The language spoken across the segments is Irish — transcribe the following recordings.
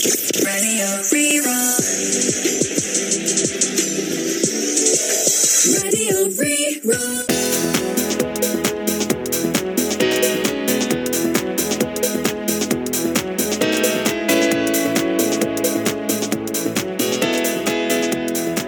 Radio Rí-Rá. Radio Rí-Rá.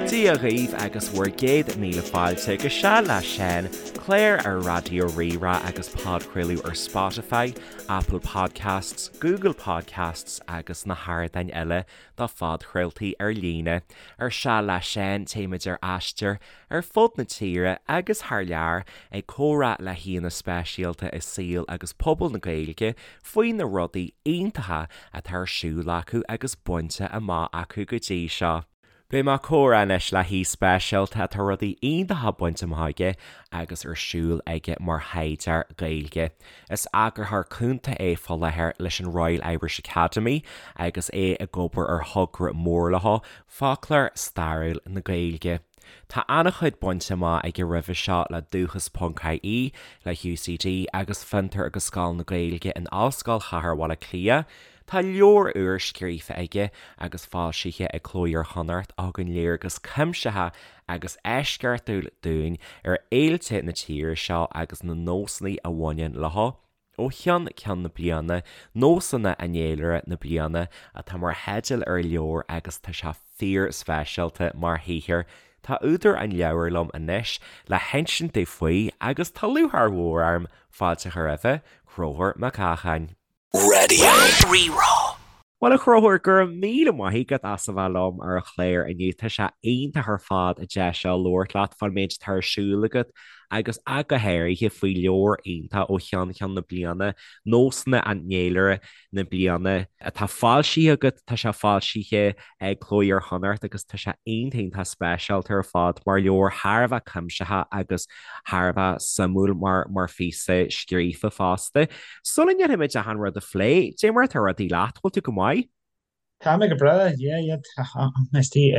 Dia dhaoibh agus bhur gcéad míle fáilte go Seal le Seán, clár ar Raidió Rí-Rá agus podchraoladh ar Spotify, Apple Podcasts, Google Podcasts agus na hardáin eile do phodchraoltaí ar líne. Ar Seal le Seán, téimid ar aistear ar fud na tíre agus thar lear ag comhrá le haíonna speisialta i saol agus pobal na Gaeilge faoi na rudaí iontacha atá ar siúl acu agus bainte amach acu go dtí seo. Beidh mé ag comhrá anois le haoi speisialta atá rudaí iontacha bainte amach aige agus ar siúl aige mar thaighdeoir Gaeilge. Is eagarthóir cúnta é fá láthair leis an Royal Irish Academy agus é ag obair ar thogra mór leo, Foclóir Stairiúil na Gaeilge. Tá an-chuid bainte amach aige roimhe seo le Dúchas ponc IE, le UCD agus Fiontar agus Scoil na Gaeilge in Ollscoil Chathair Bhaile Átha Cliath. Tá leabhar úr scríofa aige agus foilsithe ag Cló Iar-Chonnacht a thugann léargas cuimsitheach agus eisceachtúil dúinn ar fhéilte na tíre seo agus na nósanna a bhaineann leo ó cheann ceann na bliana, Nósanna an Fhéilire na Bliana atá mar theideal ar an leabhar agus tá sé fíor-speisialta mar shaothar. Tá údar an leabhair liom anois le hinsint dúinn faoi agus tá lúcháir mhór orm fáilte a chur roimhe, Conchúr Mac Eacháin. Radio Rí-Rá. Bhuel a Chonchúir, go raibh míle maith agat as a bheith liom ar an chlár inniu. Tá sé iontach ar fad an deis seo labhairt leat fán méid atá ar siúl agat agus ach go háirithe faoi leabhar iontach ó cheann ceann na bliana, Nósanna an Fhéilire na Bliana, atá foilsithe agat. Tá sé foilsithe ag Cló Iar-Chonnacht agus tá sé iontach iontach speisialta ar fad mar leabhar thar a bheith cuimsitheach agus thar a bheith suimiúil mar mar phíosa scríofa fosta. Sula ndéanfaimid achan rud a phlé, dé mar atá rudaí leat, bhfuil tú go maith? Tá mé go breá, yeah, yeah, tá mé istigh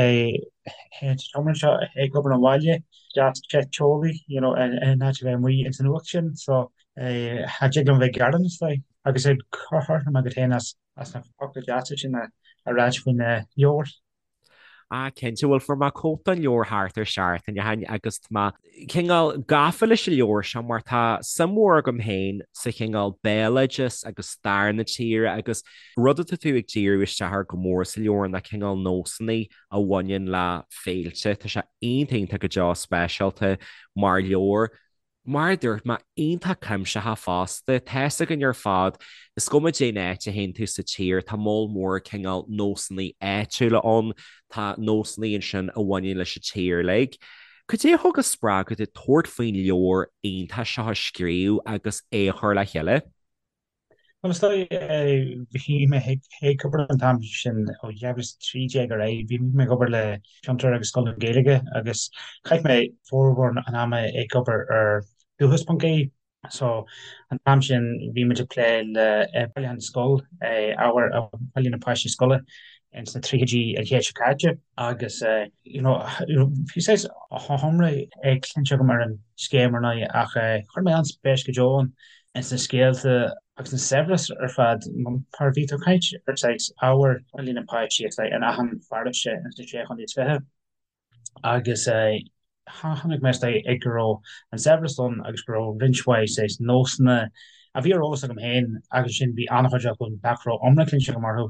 sa tseomra seo ag obair ón bhaile, deas te teolaí, you know, in áit a bheith amuigh ins an fhuacht sin, so cha dtig liom bheith ag gearán, is dóigh, agus ag cur agat féin as as na focla deasa sin a ráit faoin leabhar. Ah, cinnte, bhuel fuair mé cóip den leabhar thart ar seachtain ó shin agus tá mé cineál gafa leis an leabhar seo mar tá suim mhór agam féin sa chineál béaloideas agus stair na tíre agus rud atá tú ag díriú isteach air go mór sa leabhar ná cineál nósanna a bhaineann le féilte. Tá sé iontach iontach go deo speisialta mar leabhar. Mar a dúirt mé, iontach cuimsitheach fosta. Tá's againn ar fad, is cuma cén áit a théann tú sa tír, tá moll mór cineál nósanna áitiúla ann, tá nósanna ansin a bhaineann leis an tír uilig. Cad é a thug an spreagadh duit tabhairt faoin leabhar iontach seo a scríobh agus é a chur le chéile? Bhuel, is dóigh, bhí mé ag obair an t-am sin ó 2013 ar aghaidh, bhí mé ag obair le Fiontar agus Scoil na Gaeilge agus chaith mé formhór an ama ag obair ar Dúchas.ie. So, an t-am sin bhí muid ag plé le bailiúchán scol, ábhar a bhailigh na páistí scoile ins na tríochaidí an chéid seo caite agus you know bhí saghas iomrá cluinte agam ar an scéim ar ndóigh ach chuir mé an-spéis go deo ann. ins na scéalta agus an saibhreas ar fad mar bhí tú ag caint ar saghas ábhar a bhailigh na páistí is in achan pharóiste ins na Sé Chontae is Fiche agus chonaic mé is dóigh go raibh an saibhreas ann agus go raibh roinnt mhaith saghas nósanna a bhí ar eolas agam féin agus ansin bhí an-chuid acu nach raibh iomrá cluinte agam orthu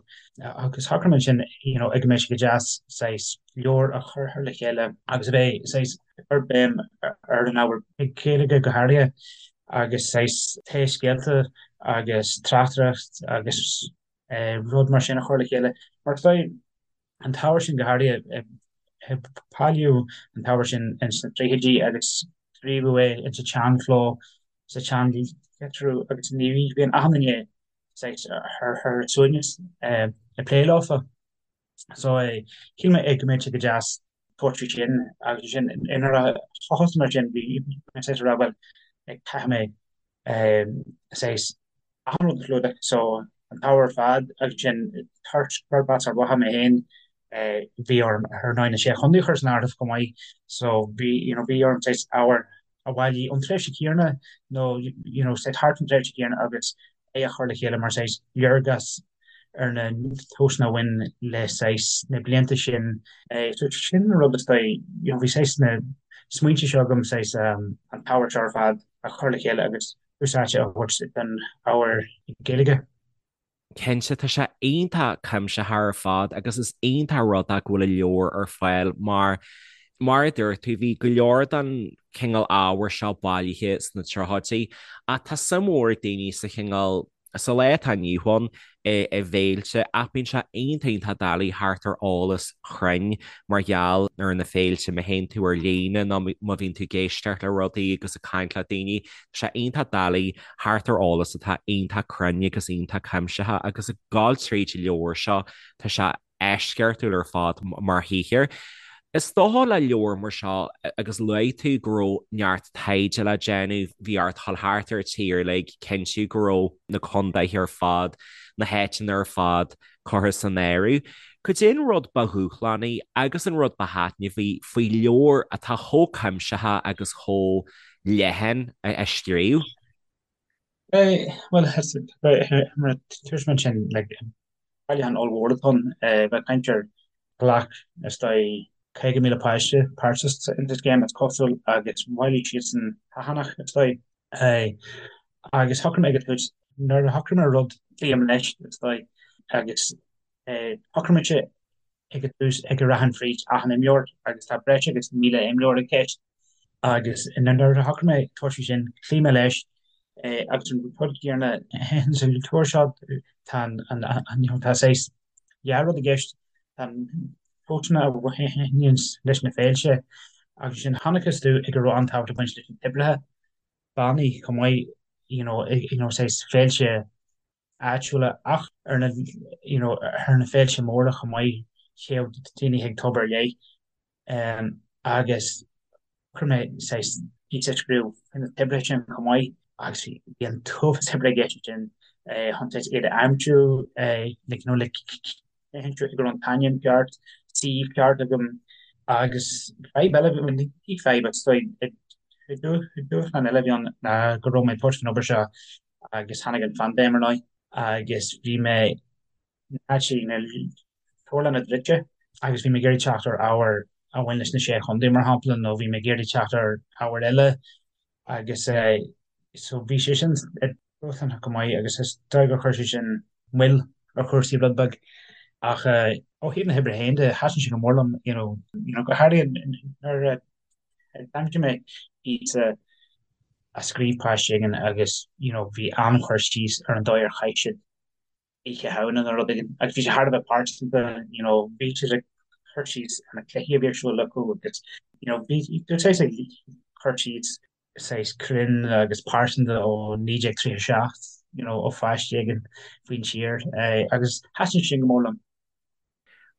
agus shocraigh mé ansin you know go mbeadh sé go deas saghas leabhar a chur le chéile agus a bheith saghas ag cur béim ar an ábhar Gaeilge go háirithe agus saghas tae scéalta agus tráchtaireacht agus rud mar sin a chur le chéile. Mar is dóigh an t-ábhar sin go háirithe, bailíodh an t-ábhar sin ins na tríochaidí agus scríobhadh é ins an tseanchló, sa tseanlitriú agus ní bhíonn achan duine saghas ar a suaimhneas ag plé leofa. So shíl mé go mbeadh sé go deas tabhairt faoi sin agus ansin nuair a thosaigh mé sin bhí mé saghas ag rá bhuel caithfidh mé saghas achan rud a chlúdach so an t-ábhar ar fad agus ansin toisc gurb as Ard Mhacha mé féin bhí orm ar ndóigh na Sé Chontae a chur san áireamh chomh maith so bhí you know bhí orm saghas ábhar a bhailigh ón tréimhse chéanna nó you know saghas thart an tréimhse chéanna agus é a chur le chéile mar saghas léargas. ar na nósanna a bhain le saghas na blianta sin. So sin an rud is dóigh, you know, bhí saghas na smaointe seo agam saghas an t-ábhar seo ar fad a chur le chéile agus tús áite a thabhairt don ábhar Gaeilge. Cinnte, tá sé iontach cuimsitheach ar fad agus is iontach rud é go bhfuil an leabhar ar fáil mar, mar a dúirt tú, bhí go leor den chineál ábhair seo bailithe sna tríochaidí ach tá suim mhór ag daoine sa chineál sa lá atá inniu ann i bhféilte ach bíonn sé iontach iontach doiligh theacht ar eolas cruinn mar gheall ar na féilte má théann tú ar líne nó má bhíonn tú ag éisteacht le rudaí agus ag caint le daoine tá sé iontach doiligh theacht ar eolas atá iontach cruinn agus iontach cuimsitheach agus ag gabháil tríd an leabhar seo tá sé eisceachtúil ar fad mar shaothar. Is dócha le leabhar mar seo agus luaigh tú go raibh neart taighde le déanamh, bhí ort dhul thart ar an tír uilig, cinntiú go raibh na contaetha ar fad, na háiteanna ar fad curtha san áireamh. Cad é an rud ba dhúshlánaí agus an rud ba thaitneamhaí faoi leabhar atá chomh cuimsitheach agus chomh leathan a scríobh? Bhuel, mar a dúirt mé ansin, like, bailiúchán ollmhór atá ann, bheith ag caint ar ghlac, is dóigh, 50,000 páiste páirt sa scéim, is cosúil, agus bhailigh siadsan achan, is dóigh. Agus shocraigh mé ag an tús, nuair a shocraigh mé rud, cloím leis, is dóigh, agus shocraigh mise ag an tús go rachainn fríd achan imleabhar agus tá breis agus 1,000 imleabhar i gceist agus nuair a shocraigh mé tabhairt faoi sin, chloígh mé leis agus an rud céanna sa leabhar seo, tá an, tá saghas dhá rud i gceist, tá na nósanna a bhaineann leis na féilte agus ansin chonacthas domh go raibh an-tábhacht ag baint leis na toibreacha, bannaí chomh maith, you know, you know saghas féilte áitiúla ach ar na you know ar na féilte móra chomh maith théadh daoine chuig tobar ar leith agus chuir mé saghas píosa a scríobh faoi na toibreacha sin chomh maith agus bhí an t-uafás oibre i gceist ansin chun saghas iad a aimsiú like you know le cinntiú go raibh an t-ainm ceart, suíomh ceart agam agus fadhb eile, bhuel ní fadhb is dóigh dúshlán eile a bhí ann ná go raibh mé ag tabhairt faoin obair seo agus tháinig an phaindéim ar ndóigh agus bhí mé actually na leabharlanna druidte agus bhí mé ag iarraidh teacht ar ábhar a bhain leis na Sé Chontae mar shampla nó bhí mé ag iarraidh teacht ar ábhar eile agus so bhí sé sin dúshlánach go maith agus is dóigh gur chuir sé sin moill ar chúrsaí rud beag ach ó thaobh na hoibre féin de thaitin sé go mór liom you know you know go háirithe nuair a d'aimsigh mé píosa a scríobh páiste éigin agus you know bhí an-chur síos ar an dóigh ar chaith siad Oíche Shamhna nó rud éigin agus bhí sé thar a bheith pearsanta you know bhí siad ag cur síos ar na cluichí a bhí ar siúl acu agus you know bhí saghas ag cur síos saghas cruinn agus pearsanta ó 1937 you know ó pháiste éigin faoin tír agus thaitin sin go mór liom.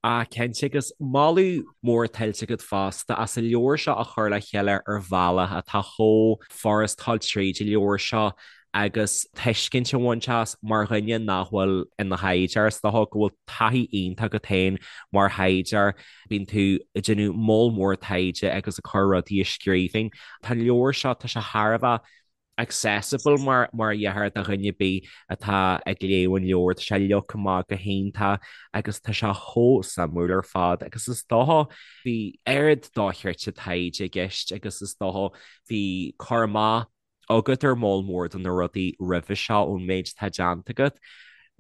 Ah, cinnte, agus moladh mór tuillte agat fosta as an leabhar seo a chur le chéile ar bhealach atá chomh furast dul tríd an leabhar seo agus tuiscint a bhaint as mar dhuine nach bhfuil ina thaighdeoir. Is dócha go bhfuil taithí iontach agat féin mar thaighdeoir, bíonn tú ag déanamh moll mór taighde agus ag cur rudaí i scríbhinn. Tá an leabhar seo, tá sé thar a bheith accessible mar mar a déarfá do dhuine ar bith atá ag léamh an leabhair. Tá sé leagtha amach go hiontach agus tá sé chomh suimiúil ar fad agus is dócha bhí oiread dochreidte taighde i gceist agus is dócha bhí cur amach agat ar moll mór de na rudaí roimhe seo ón méid atá déanta agat.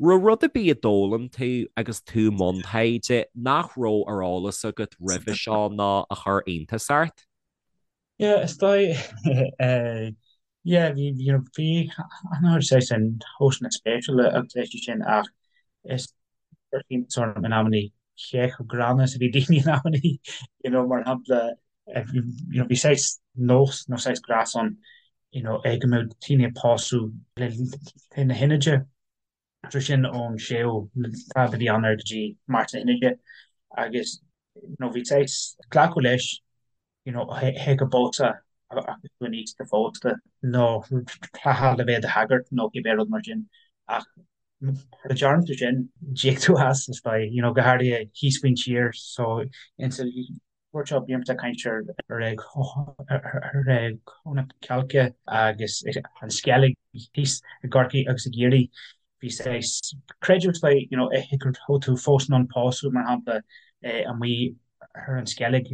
Raibh rud ar bith a d'fhoghlaim tú agus tú i mbun taighde nach raibh ar eolas agat roimhe seo nó a chuir iontas ort? Yeah, is dóigh, yeah, bhí, you know, bhí an-chuid saghas nósanna spéisiúla agus leithéidí sin ach is chuir iontas orm in amannaí cé chomh gránna is a bhí daoine in amannaí, you know, mar shampla, you know, bhí saghas nós nó saghas gnás ann, you know, é go mbeadh daoine ag pósadh le linn na hInide. So sin ón séú lá de mhí Eanáir go dtí Márta na hInide agus you know bhí saghas glacadh leis you know hé go bpósfá agus tú in aois do phósta nó rachfá le bheith i do shagart nó cibé rud mar sin ach mura dtearn tú sin d'íoc tú as is dóigh you know go háirithe thíos faoin tír so insa leabhar seo bímse ag caint ar ar na Cailce agus an Sceilg thíos i gCorcaigh agus i gCiarraí. Bhí saghas creideamh is dóigh, you know, go raibh tú fós in ann pósadh, mar shampla, amuigh ar an Sceilg.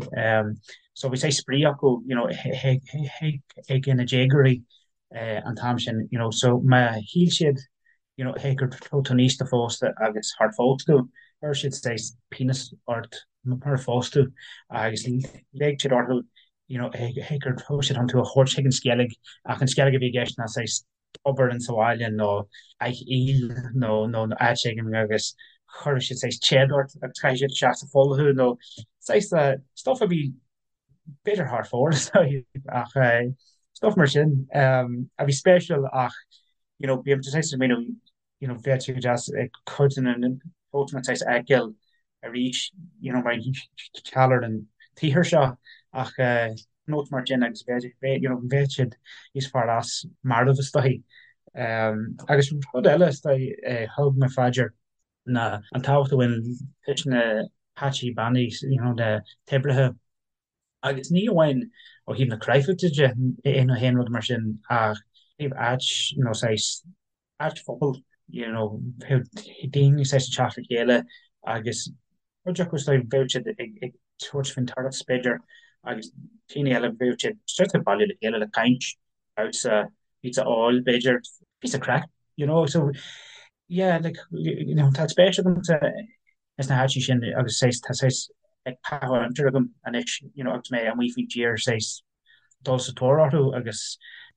So bhí saghas spraoi acu, you know, ag na déagóirí an t-am sin, you know. So má shíl siad, you know, go raibh tú aosta phósta agus char phós tú, chuir siad saghas pionós ort murar phós tú agus leig siad orthu, you know, go raibh siad chun tú a thabhairt chuig an Sceilg ach an Sceilg a bhí i gceist ná saghas tobar in sa bhaile nó áith aoil nó nó áit éigin agus chuir siad saghas téad ort agus chaith siad isteach sa pholl thú nó saghas stuff a bhí b'fhéidir thar fóir ach stuff mar sin a bhí spéisiúil ach you know bím saghas ag smaoineamh you know bheadh sé go deas cuid de na nósanna saghas a fheiceáil arís you know mar gheall ar an tsaothar seo ach nós mar sin agus bheadh you know bheadh siad níos fearr as marbh is dóigh. Agus rud eile is dóigh a thug mé faoi dear ná an tábhacht a bhain leis na peataí beannaithe you know na toibreacha Agus ní amháin ó thaobh na cráifeachta de nó aon rud mar sin ach ó thaobh áit nó saghas áit phobail, you know, bheadh daoine saghas ag teacht le chéile agus cuid acu is dóigh bheadh siad ag ag tabhairt faoin turas b'fhéidir agus daoine eile bheadh siad just ag bailiú le chéile le caint, damhsa, píosa óil b'fhéidir, píosa craic, you know, so yeah, like, you know, tá spéis agamsa ins na háiteanna sin agus saghas tá saghas ag caitheamh aimsire agam anois you know agus mé amuigh faoin tír saghas dul sa tóir orthu agus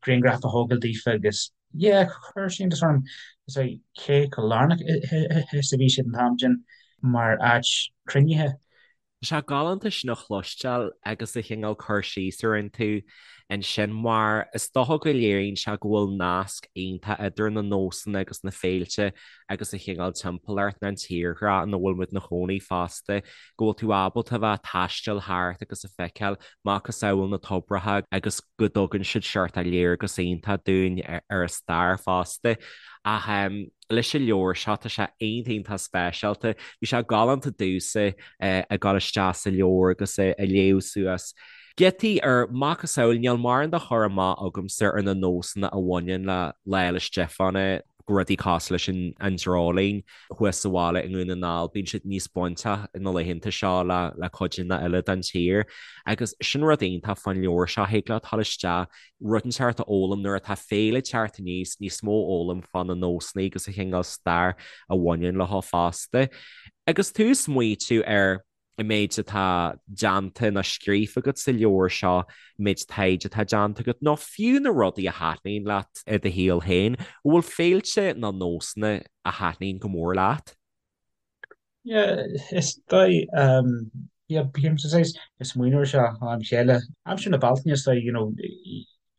grianghraif a thógáil daofa agus yeah chuir sé iontas orm is é cé chomh lárnach is a bhí siad an t-am sin mar áit cruinnithe. Tá sé galánta sin a chloisteáil agus an cineál cur síos a rinne tú ansin mar is dócha go léiríonn sé go bhfuil nasc iontach idir na nósanna agus na féilte agus an chineál timpeallacht nó an tírdhreach ina bhfuil muid ina chónaí fosta, go bhfuil tú ábalta a bheith ag taisteal thart agus a feiceáil macasamhail na toibreacha agus go dtugann siad seort léargas iontach dúinn ar an stair fosta. Ach leis an leabhar seo tá sé iontach iontach speisialta. Bhí sé galánta domhsa ag dul isteach sa leabhar agus ag léamh suas giotaí ar macasamhail, níl mórán de chur amach agamsa ar na nósanna a bhaineann le Lá 'le Stiofáin, rudaí cosúil leis an dreoilín thuas sa bhaile i nDún na nGall, bíonn siad níos bainteach na laethanta seo le cuideanna eile den tír. Agus sin rud iontach fán leabhar seo, thig leat dul isteach, rud inteacht a fhoghlaim nuair atá féile ag teacht aníos, níos mó a fhoghlaim fá na nósanna agus an chineál stair a bhaineann leo fosta. Agus tú ag smaoitiú ar an méid atá déanta nó scríofa agat sa leabhar seo, an méid taighde atá déanta agat, nó fiú na rudaí a thaitníonn leat i do shaol féin, an bhfuil féilte nó nósanna a thaitníonn go mór leat? Yeah, is dóigh, yeah, bím saghas ag smaoineamh air seo ó am go chéile. Aimsir na Bealtaine, is dóigh, you know,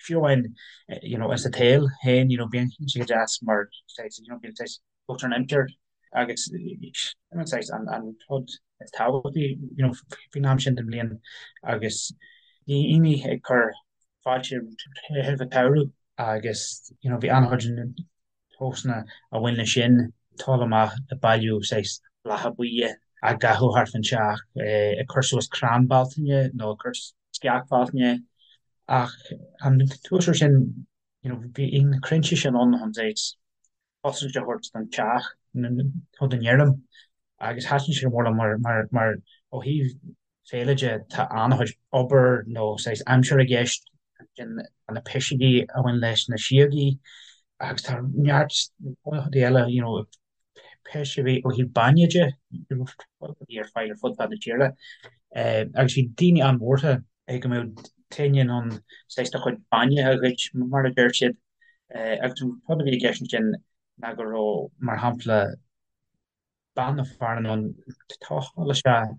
fiú amháin, you know, sa tsaol féin, you know, bíonn sé go deas mar saghas, you know, bíonn saghas an aimsir agus sin an saghas an rud is tábhachtaí you know faoin am sin den bhliain agus daoine ag cur fáilte roimh an tsamhradh agus you know bhí an-chuid nósanna a bhain leis sin, dul amach ag bailiú saghas blátha buí á gcaitheamh thart fán teach, ag cur suas crann Bealtaine nó ag cur sceach Bhealtaine ach an tuas air sin you know bhí na crainnte sin ann chun saghas cosaint a thabhairt don teach nó don fheirm agus thaitin sé go mór liom mar mar mar ó thaobh féile de tá an-chuid obair nó saghas aimsire i gceist ansin na piseogaí a bhain leis na síogaí agus tá neart rudaí eile you know piseogaí ó thaobh bainne de rudaí ar fáil ar fud fad na tíre agus bhí daoine an-bhuartha go mbeadh éinne in ann saghas do chuid bainne a ghoid mar a deir siad. Agus an rud a bhí i gceist ansin ná go raibh, mar shampla, bean nó fear in ann dul isteach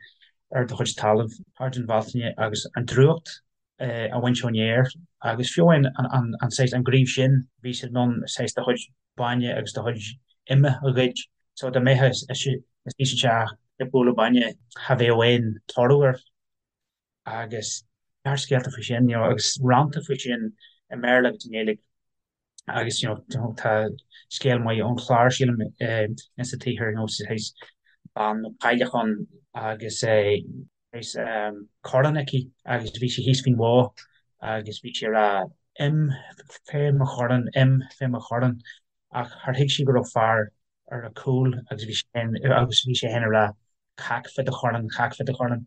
ar do chuid talaimh thart an Bhealtaine agus an drúcht a bhaint ón fhéar agus fiú amháin an saghas, an gníomh sin, bhí siad in ann saghas do chuid bainne agus do chuid ime a ghoid. So dá mbeifeá istigh sa teach ag bualadh bainne, cha bheadh aon toradh air. agus neart scéalta faoi sin, you know, agus rannta faoi sin i mBéarla agus i nGaeilge agus, you know, tá scéal maith ón Chlár, sílim, insa tsaothar, you know, saghas bean nó cailleach ann agus saghas corrán aici agus bhí sí thíos faoin bhó agus bhí sí ag rá im fé mo chorrán, im fé mo chorrán ach char thuig sí go raibh fear. ar a cúl agus bhí sé agus bhí sé féin ag rá cac fá do chorn, cac fá do chorn.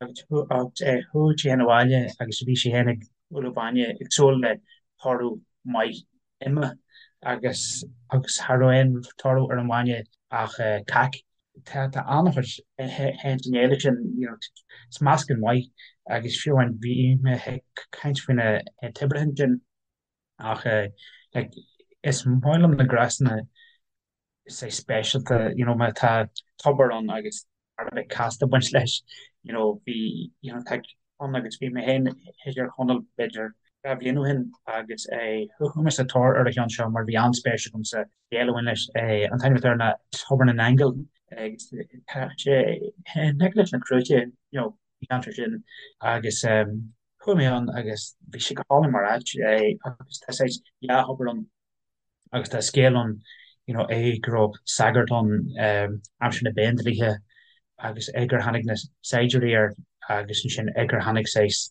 Agus chuaigh sé féin abhaile agus bhí sé féin ag bualadh bainne ag súil le toradh maith ime agus agus cha raibh aon toradh ar an bhainne ach cac. Tá tá an-chuid ins an fhéile sin, you know, is meascán maith agus fiú amháin bhí mé ag caint faoi na toibreacha ansin ach like is maith liom na gnásanna saghas speisialta, you know, má tá tobar ann agus thar a bheith casta ag baint leis, you know, bhí, you know, tá ann agus bhí mé féin i dTír Chonaill b'fhéidir 2 bhliain ó shin agus chuaigh mé sa tóir ar an cheann seo mar bhí an-spéis agam sa scéal a bhain leis. An t-ainm atá air ná Tobar na nAingeal agus tá sé in aice leis na Cruaiche, you know, an ceantar sin agus chuaigh mé ann agus bhí sé go hálainn mar áit agus tá saghas dhá thobar ann. Agus tá scéal ann, you know, é go raibh sagart ann aimsir na bPéindlíthe agus é gur tháinig na saighdiúirí air agus ansin é gur tháinig saghas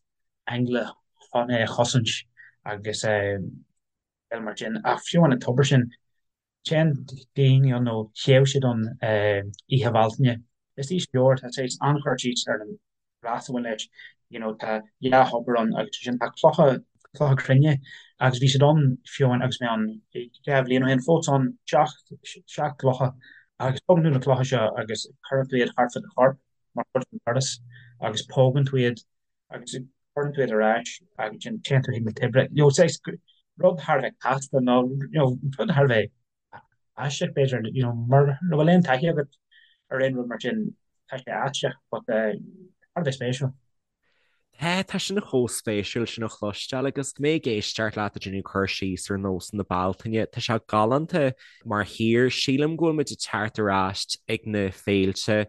aingle chun é a chosaint agus scéal mar sin. Ach fiú amháin an tobar sin, téann daoine ann nó théadh siad ann Oíche Bhealtaine. Is í leabhar, tá saghas an-chur síos ar an ghnás a bhain leis, you know, tá dhá thobar ann agus ansin tá clocha, clocha cruinne agus bhí siad ann fiú amháin agus mé ann 2 bhliain ó shin, fós ann, seacht, seacht gclocha agus tógann tú na clocha seo agus cuireann tú iad thart fá do chorp mar chuid den turas agus pógann tú iad agus cuireann tú iad ar ais agus ansin téann tú chuig na toibreacha. You know, saghas rud thar a bheith casta nó, you know, rud thar a bheith aisteach b'fhéidir, you know, mura bhfuil aon taithí agat ar aon rud mar sin, tá sé aisteach but thar a bheith spéisiúil. Tá, tá sin chomh spéisiúil sin a chloisteáil agus mé ag éisteacht leat ag déanamh cur síos ar nósanna Bealtaine, tá sé galánta mar thír. Sílim go bhfuil muid ag teacht ar ais ag na féilte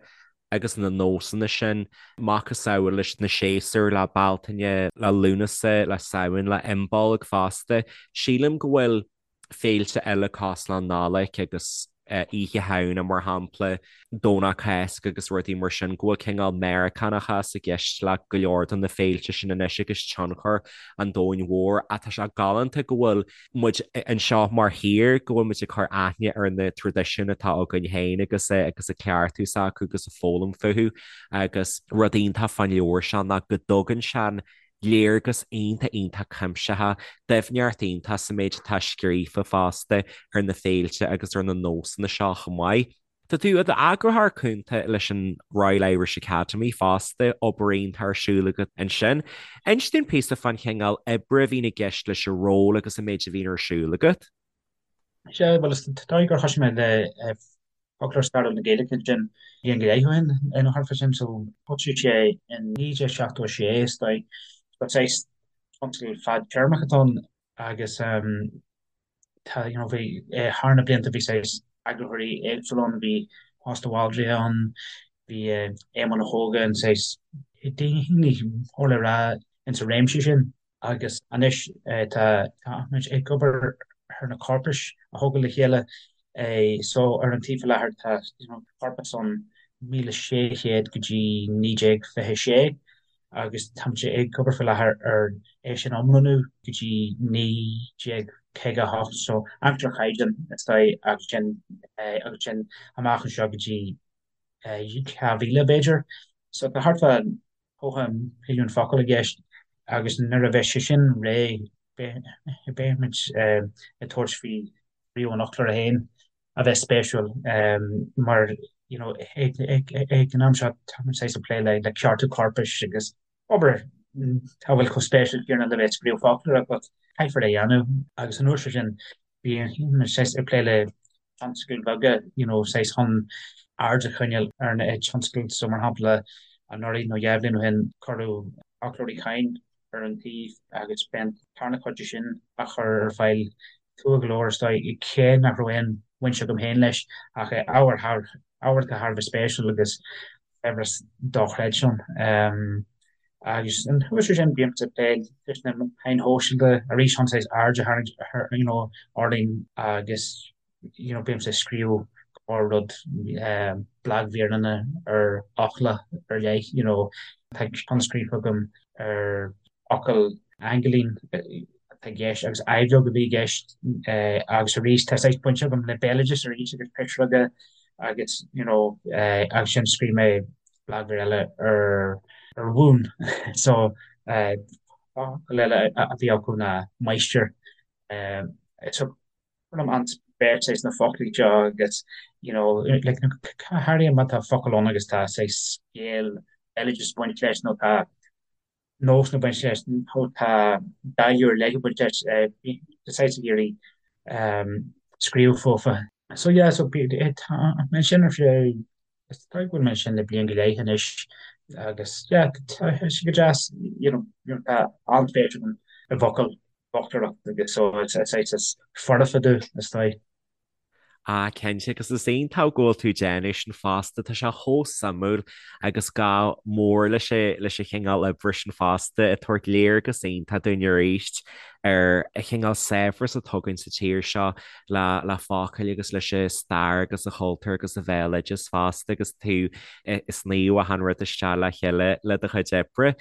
agus na nósanna sin, macasamhail leis na séasúir, le Bealtaine, le Lúnasa, le Samhain, le Imbolc fosta. Sílim go bhfuil féilte eile cosúil le Nollaig agus Oíche Shamhna, mar shampla, Domhnach Cásca agus rudaí mar sin, go bhfuil cineál Meiriceánachas i gceist le go leor de na féilte sin anois agus tionchar an domhain mhóir. Ach tá sé galánta go bhfuil muid anseo mar thír, go bhfuil muid ag cur aithne ar na traidisiúin atá againn féin agus agus ag cleachtadh s'acu agus ag foghlaim fúthu. Agus rud iontach fán leabhar seo ná go dtugann sé léargas iontach iontach cuimsitheach, doimhneacht iontach sa méid atá scríofa fosta ar na féilte agus ar na nósanna seo chomh maith. Tá tú i d'eagarthóir cúnta leis an Royal Irish Academy fosta, obair iontach ar siúl agat ansin. Inis dúinn píosa fán chineál oibre a bhíonn i gceist leis an ról agus an méid a bhíonn ar siúl agat. Sea, bhuel, is dóigh gur thosaigh mé le Foclóir Stairiúil na Gaeilge ansin bliain go leith ó shin, nó thart fá sin, so thosaigh sé in 1976, is dóigh. So saghas tionscadal fadtéarmach atá ann agus tá, you know, bhí, thar na blianta bhí saghas eagarthóirí éagsúla ann, bhí Tomás de Bhaldraithe ann, bhí Éamonn Ó hÓgáin, saghas daoine mór le rá insa réimse sin. Agus anois tá muid ag obair ar na corpais a thógáil le chéile. So ar an taobh faoi láthair tá corpas ann 1600 go dtí 1926 agus tá muid ag obair faoi láthair ar é sin a iomlánú go dtí 1958, so aimsir an Chaighdeáin is dóigh agus sin agus sin amach anseo go dtí 2000 b'fhéidir. So tá thart fá 90 milliún focal i gceist agus nuair a bheidh sé sin réidh beidh muid ag tabhairt faoi scríobh an fhoclóra féin a bheith spéisiúil mar you know ag an am seo tá muid saghas ag plé le ceartú corpais agus obair a bhfuil chomh spéisiúil céanna le bheith ag scríobh foclóra but caithfear é a dhéanamh agus an uair sin bíonn muid saghas ag plé le tionscadail bheaga, you know, saghas chun aird a choinneáil ar na tionscadail. So, mar shampla, anuraidh nó 2 bhliain ó shin, cuireadh Foclóir Uí Chadhain ar an taobh agus beidh an tarna cuid de sin á chur ar fáil tráth go leor, is dóigh, cé nach raibh aon bhaint agam féin leis, ach ábhar thar, ábhar atá thar a bheith spéisiúil agus saibhreas dochreidte ann. Agus anuas air sin, bímse ag plé leis na meáin shóisialta arís chun saghas aird a tharraingt ar, you know, orainn agus, you know, bímse ag scríobh go leor rud, blagmhíreanna ar fhocla ar leith, you know, tá ceann scríofa agam ar fhocal aingilín. atá i gceist agus aibhleog a bhí i gceist agus arís tá saghas baint agam le béaloideas arís agus pisreoga agus you know agus ansin scríobh mé blagmhír eile ar ar mhún so focal eile a bhí acu ná máistir so cuirim an-spéis saghas sna foclaí seo agus you know like go háirithe má tá focal ann agus tá saghas scéal béaloideas ag baint leis nó tá nós ag baint leis nó tá dáileadh ar leith ag baint leis, tá saghas ag iarraidh scríobh fúthu. So yeah, so tá mé ansin ar feadh, is dóigh go bhfuil mé ansin le bliain go leith anois agus yeah, tá sé go deas, you know, tá an-spéis agam i bhfocail, bhfoclóireacht agus so is saghas is foirfe domh, is dóigh. Ah, cinnte, agus is iontach go bhfuil tú ag déanamh sin fosta, tá sé chomh suimiúil agus gá mór leis leis an chineál oibre sin fosta, ag tabhairt léargas iontach dúinn arís ar an chineál saibhreas atá againn sa tír seo le le focail agus leis an stair agus an chultúr agus an bhéaloideas fosta agus tú ag sníomh achan rud isteach le chéile le do chuid oibre.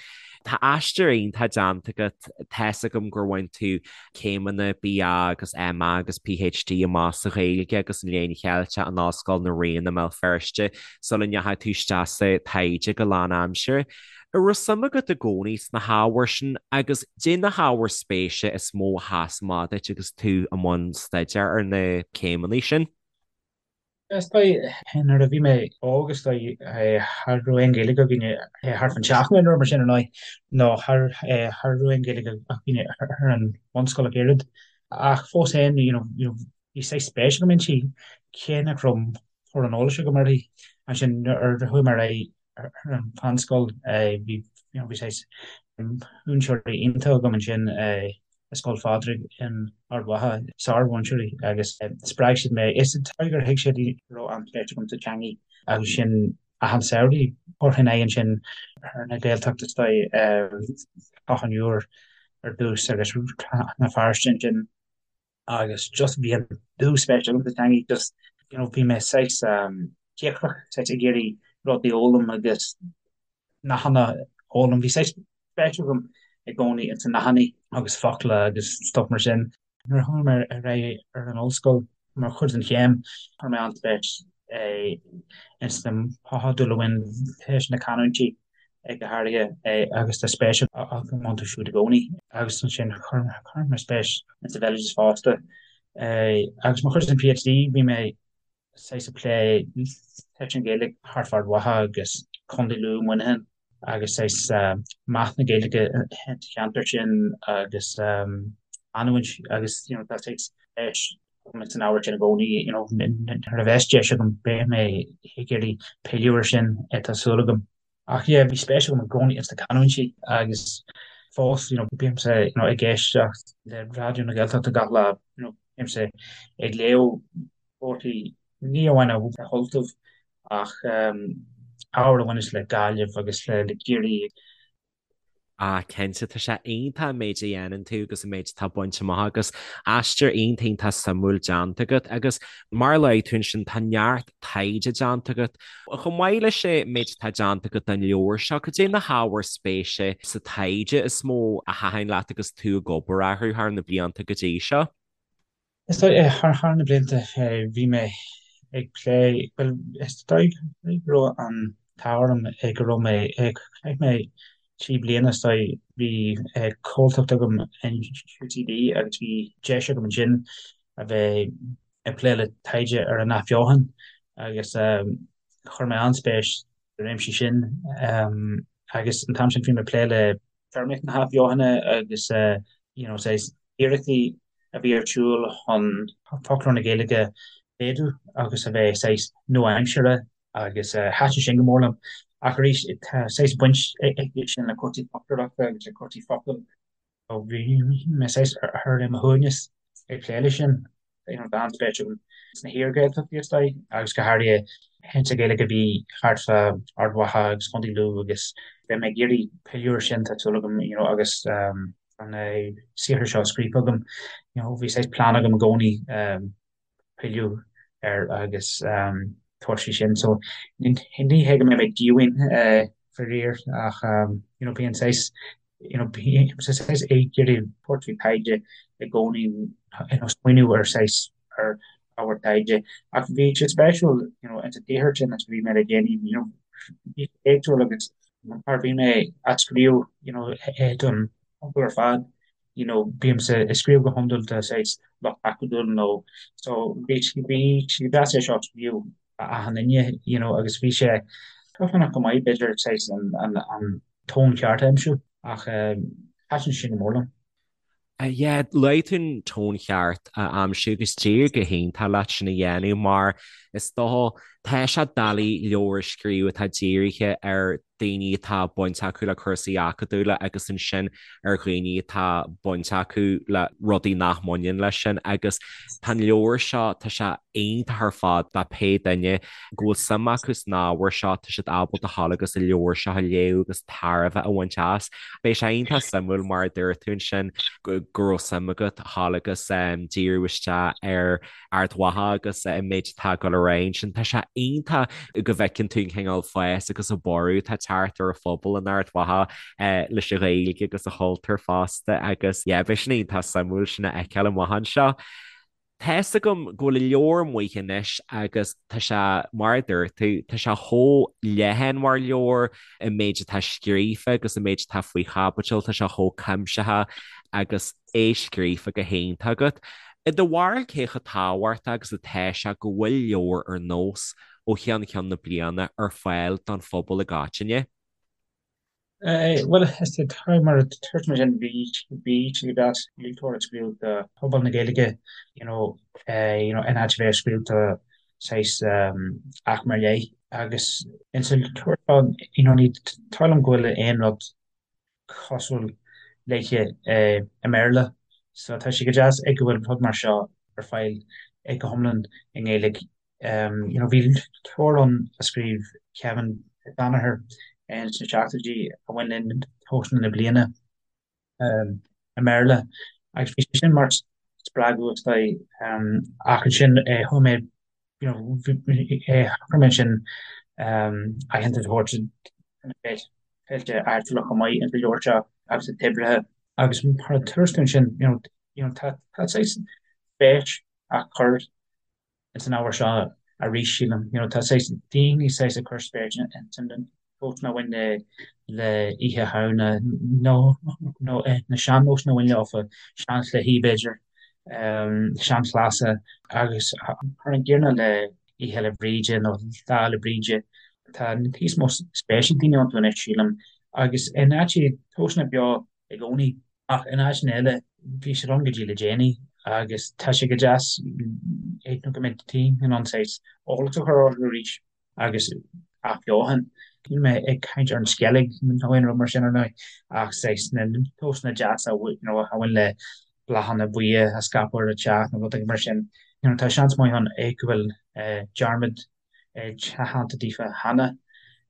Tá aistear iontach déanta agat, tá's agam gur bhain tú céimeanna BA agus MA agus PhD amach sa Ghaeilge agus an Léann Cheilteach in Ollscoil na Ríona i mBéal Feirste sula ndeachaigh tú isteach sa taighde go lánaimseartha. An raibh suim agat i gcónaí sna hábhair sin agus caidé na hábhair spéise is mó a sheas amach duit agus tú i mbun staidéir ar na céimeanna sin? Is dóigh, nuair a bhí mé óg, is dóigh, cha raibh aon Ghaeilge againne thart fán teach nó mar sin ar ndóigh, nó cha raibh aon Ghaeilge againne ar an bhunscoil ach oiread. Ach fós féin, you know, bhí saghas spéis agam inti, cé nach raibh mórán eolais agam uirthi. Ansin nuair a chuaigh mé ar aghaidh ar an mheánscoil, bhí, you know, bhí saghas múinteoirí iontacha agam ansin, i Scoil Phádraig in Ard Mhacha, sármhúinteoirí agus spreag siad mé. Is dóigh gur thuig siad go raibh an-spéis agam sa teangaidh agus sin achan samhradh thabharfainn aghaidh ansin ar na Gaeltachta is dóigh, Clochán Iúir ar dtús agus Rann na Feirste ansin agus just bhí an dúspéis agam sa teangaidh just you know bhí mé saghas cíocrach, saghas ag iarraidh rudaí a fhoghlaim agus nathanna a fhoghlaim. Bhí saghas spéis agam i gcónaí ins na nathanna agus focla agus stuff mar sin. Nuair a chuaigh mé ar aghaidh ar an ollscoil mar chuid den chéim, chuir mé an-spéis ins na modúil a bhain leis na canúintí go háirithe agus tá spéis agam iontu siúd i gcónaí. Agus ansin chuir mé spéis ins an bhéaloideas fosta. Agus mar chuid den PhD bhí mé saghas ag plé leis an Ghaeilge thart fá Ard Mhacha agus Contae Lú, Muineachán agus saghas meath na Gaeilge sa cheantar sin agus canúint agus you know tá saghas spéis agam san ábhar sin i gcónaí you know nuair a bheas deis agam beidh mé ag iarraidh pilleadh air sin tá súil agam. Ach yeah bhí spéis agam i gcónaí ins na canúintí agus fós you know bímse you know ag éisteacht le Raidió na Gaeltachta gach lá you know bímse ag léamh comharthaí ní amháin ar Ultaibh ach ábhar a bhaineas le Gaillimh agus le Ciarraí. Ah cinnte, tá sé iontach an méid a dhéanann tú agus an méid atá bainte amach agus aistear iontach iontach suimiúil déanta agat agus mar a luaigh tú ansin tá neart taighde déanta agat. Chomh maith leis an méid atá déanta agat don leabhar seo, cad é na hábhair spéise sa taighde is mó a thaitin leat agus tú ag obair orthu thar na blianta go dtí seo? Is dóigh, thar na blianta, bhí mé ag plé, bhuel, is dóigh go raibh an t-ádh orm go raibh mé, chaith mé 3 bliana, is dóigh, bhí comhaltacht agam in UCD agus bhí deis agam ansin a bheith ag plé le taighde ar an athbheochan agus chuir mé an-spéis sa réimse sin agus an t-am sin bhí mé ag plé le téarmaíocht na hathbheochana agus you know saghas iarrachtaí a bhí ar siúl chun foclóir na Gaeilge a mhéadú agus a bheith saghas nua-aimseartha agus thaitin sin go mór liom. Ach arís tá saghas baint aige sin le cúrsaí foclóireachta agus le cúrsaí focal. Bhí mé saghas ar mo shuaimhneas ag plé leis sin. You know, tá an-spéis agam sna hiar-Ghaeltachtaí is dóigh, agus go háirithe sa Ghaeilge a bhí thart fá Ard Mhacha agus Contae Lú agus beidh mé ag iarraidh pilleadh air sin, tá súil agam, you know, agus an saothar seo scríofa agam, you know, bhí saghas plean agam i gcónaí pilleadh air agus tabhairt faoi sin. So ní hé go mbeidh mé díomhaoin faraor ach you know, bíonn saghas. You know, bímse saghas ag iarraidh tabhairt faoi taighde i gcónaí, you know, smaoineamh ar saghas ar ábhar taighde. Ach bhí sé spéisiúil, you know, insa tsaothar sin a scríobh mé le déanaí, you know, bhí sé éagsúil agus mar bhí mé á scríobh, you know, don phobal ar fad, you know, bímse ag scríobh go hiondúil do saghas lucht acadúil nó so bhí bhí sé deas é seo a scríobh do achan duine, you know, agus bhí sé dúshlánach go maith b'fhéidir saghas an an an tón ceart a aimsiú ach thaitin sé go mór liom. Yeah, luaigh tú an tón cheart a aimsiú agus d'éirigh go hiontach leat sin a dhéanamh mar is dócha tá sé doiligh leabhar a scríobh atá dírithe ar daoine atá baint acu le cúrsaí acadúla agus ansin ar dhaoine atá baint acu le rudaí nach mbaineann leis sin agus tá an leabhar seo, tá sé iontach ar fad do pé duine go bhfuil suim acu san ábhar seo, tá siad ábalta a ghabháil agus an leabhar seo a léamh agus tairbhe a bhaint as. Beidh sé iontach suimiúil mar a dúirt tú ansin go raibh suim agat a ghabháil agus díriú isteach ar Ard Mhacha agus an méid atá ag dul ar aghaidh ansin. Tá sé iontach go bhfeiceann tú an cineál fás agus an borradh atá ag teacht ar an phobal in Ard Mhacha leis an Ghaeilge agus an chultúr fosta agus yeah beidh sin iontach suimiúil sin a fheiceáil amach anseo. Tá's agam go bhfuil an leabhar amuigh anois agus tá sé, mar a dúirt tú, tá sé chomh leathan mar leabhar, an méid atá scríofa agus an méid atá faoi chaibidil, tá sé chomh cuimsitheach agus é scríofa go hiontach agat. I do bharúil cé chomh tábhachtach agus atá sé go bhfuil leabhar ar nós ó cheann ceann na bliana ar fáil don phobal i gcoitinne? Bhuel, is é mar a dúirt mé sin, bhí bhí sé go deas leabhar a scríobh do phobal na Gaeilge, you know, you know, in áit a bheith ag scríobh do saghas aicme ar leith. Agus insa leabhar seo, you know, ní dóigh liom go bhfuil aon rud cosúil léithe i mBéarla. So tá sé go deas ag go bhfuil rud mar seo ar fáil go hiomlán i nGaeilge. You know, bhí leabhar ann a scríobh Kevin Danaher sna seachtóidí a bhain le nósanna na bliana i mBéarla agus bhí sé sin mar spreagadh is dóigh ach ansin chuaigh mé you know, chuir mé ansin aitheantas a thabhairt do na féilte áitiúla chomh maith insa leabhar seo agus na toibreacha agus mar a dúirt tú ansin you know, you know, tá tá saghas spéis á cur ins an ábhar seo arís, sílim. You know, tá saghas daoine saghas ag cur spéis ins na nósanna a bhain le le Oíche Shamhna nó nó na sean-nósanna a bhain leofa, seanchluichí b'fhéidir, seanchleasa agus mar an gcéanna le Oíche Fhéile Bríde nó Lá Fhéile Bríde. Tá níos mó spéis ag daoine iontu anois, sílim, agus in áiteacha tá siad beo i gcónaí. Ach in áiteanna eile, bhí siad ann go dtí le déanaí agus tá sé go deas nó go mbeidh daoine in ann saghas eolas a chur orthu arís agus athbheochan. Níl mé ag caint ar an Sceilg nó aon rud mar sin ar ndóigh ach saghas na nósanna deasa you know a bhain le bláthanna buíocha a scaipeadh ar an teach nó rud éigin mar sin. You know tá seans maith ann go bhfuil dearmad déanta daofa cheana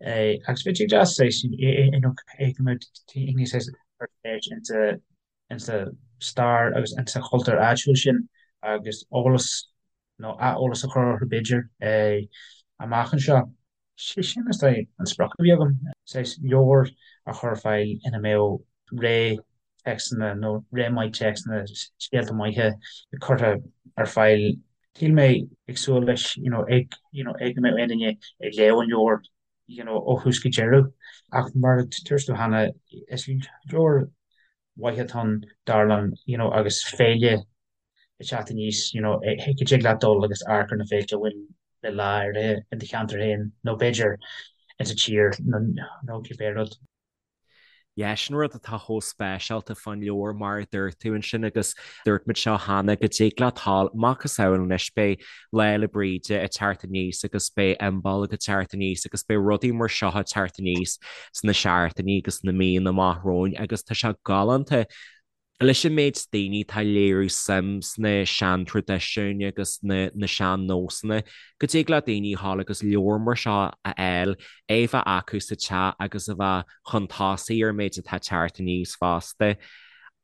agus bheadh sé deas saghas you know go mbeadh daoine saghas ag cur spéis insa insa stair agus insa chultúr áitiúil sin agus eolas nó ath-eolas a chur orthu b'fhéidir amach anseo. Sé sin is dóigh an sprioc a bhí agam, saghas leabhar a chur ar fáil ina mbeadh ré téacsanna nó ré maith téacsanna, scéalta maithe curtha ar fáil. Níl mé ag súil leis you know ag you know ag go mbeadh aon duine ag léamh an leabhair you know ó thús go deireadh ach mar a dúirt tú cheana is leabhar mhaith atá ann dar liom you know agus féile ag teacht aníos you know go dtig leat dul agus amharc ar na féilte a bhain le lá áirithe in do cheantar féin nó b'fhéidir insa tír nó nó cibé rud. Yeah, sin rud atá chomh speisialta fán leabhar mar a dúirt tú ansin agus dúirt muid seo cheana go dtig leat dhul macasamhail anois beidh Lá Fhéile Bríde ag teacht aníos agus beidh Imbolc ag teacht aníos agus beidh rudaí mar seo ag teacht aníos sna seachtainí agus sna míonna amach romhainn agus tá sé galánta Leis an méid daoine atá ag léiriú suim sna seantraidisiúin agus na na sean-nósanna, go dtig le daoine a ghabháil agus leabhar mar seo a fháil, é a bheith acu sa teach agus a bheith chun tosaigh ar an méid atá ag teacht aníos fosta.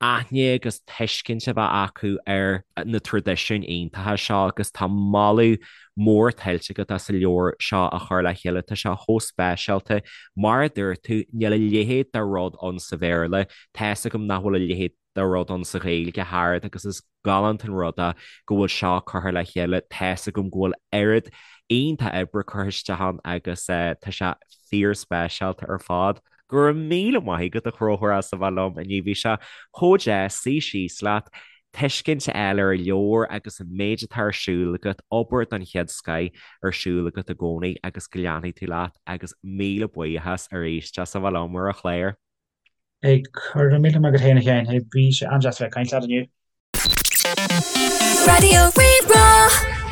aithne agus tuiscint a bheith acu ar na traidisiúin iontacha seo agus tá moladh mór tuillte agat as an leabhar seo a chur le chéile. Tá sé chomh speisialta. Mar a dúirt tú, níl a leithéid de rud ann sa Bhéarla. Tá 'fhios agam nach bhfuil a leithéid de rud ann sa Ghaeilge thart agus is galánta an rud é go bhfuil seo curtha le chéile. Tá 'fhios agam go bhfuil oiread iontach oibre curtha isteach ann agus tá sé fíorspeisialta ar fad. Go raibh míle maith agat a Chonchúir as a bheith liom inniu. Bhí sé chomh deas suí síos leat, tuiscint a fháil ar an leabhar agus an méid atá ar siúl agat, obair den chéad scoith ar siúl agat i gcónaí agus go leanfaidh tú leat agus míle buíochas arís as a bheith liom ar an chlár. Hey, go raibh míle maith agat féin a Sheáin. Bhí sé an-deas a bheith ag caint leat inniu. Raidió Rí-Rá.